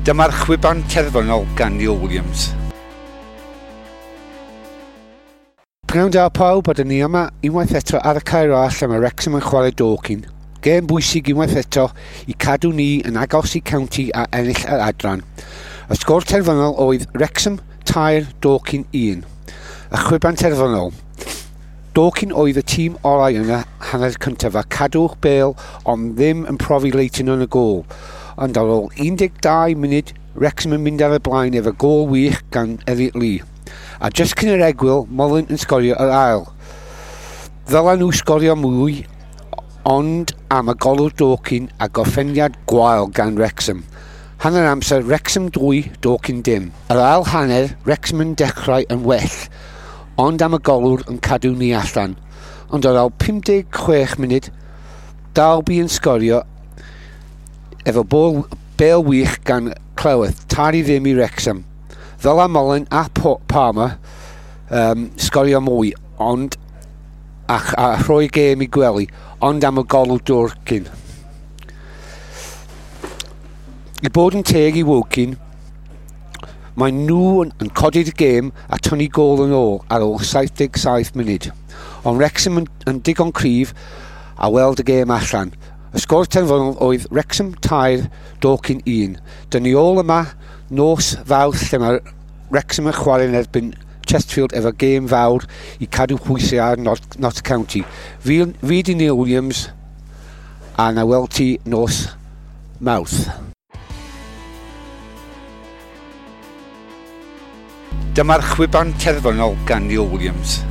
Dyma'r chwiban terfynol gan Neil Williams. Pnawn da pawb, a dyn ni yma unwaith eto ar y cae ras lle mae Wrexham yn chwarae Dorking. Gêm bwysig unwaith eto i cadw ni yn agos i County a ennill yr adran. Y sgôr terfynol oedd Wrexham 3, Dorking 1. Y chwiban terfynol. Dorking oedd y tîm orau yn y hanner cyntaf a cadw'r bêl ond ddim yn profi Leighton yn y gôl. Ond ar ôl 12 munud, Wrexham yn mynd ar y blaen efo gôl wych gan Elliot Lee. A jyst cyn yr egwyl, Mullin yn sgorio yr ail. Ddyla nhw sgorio mwy, ond am y golwr Dorking a gorffeniad gwael gan Wrexham. Hanner amser, Wrexham 2, Dorking dim. Yr ail hanner, Wrexham yn dechrau yn well, ond am y golwr yn cadw ni allan. Ond ar ôl 56 munud, Dalby yn sgorio efo bôl, bêl wych gan Cleworth, 3-0 i Wrexham. Ddyla Mullin a Palmer sgorio mwy, ond a rhoi gêm i gwely, ond am y golwr Dorking. I bod yn teg i Woking, mae nhw yn codi'r gêm a tynnu gôl yn ôl ar ôl 77 munud. Ond Wrexham yn digon cryf a weld y gêm allan. Y sgôr terfynol oedd Wrexham 3, Dorking 1. Dyn ni ôl yma nos Fawrth lle mae Wrexham yn chwarae yn erbyn Chesterfield efo gêm fawr i cadw pwysau ar Notts County. Fi di Neil Williams a na weld ti nos Mawrth. Dyma'r chwiban terfynol gan Neil Williams.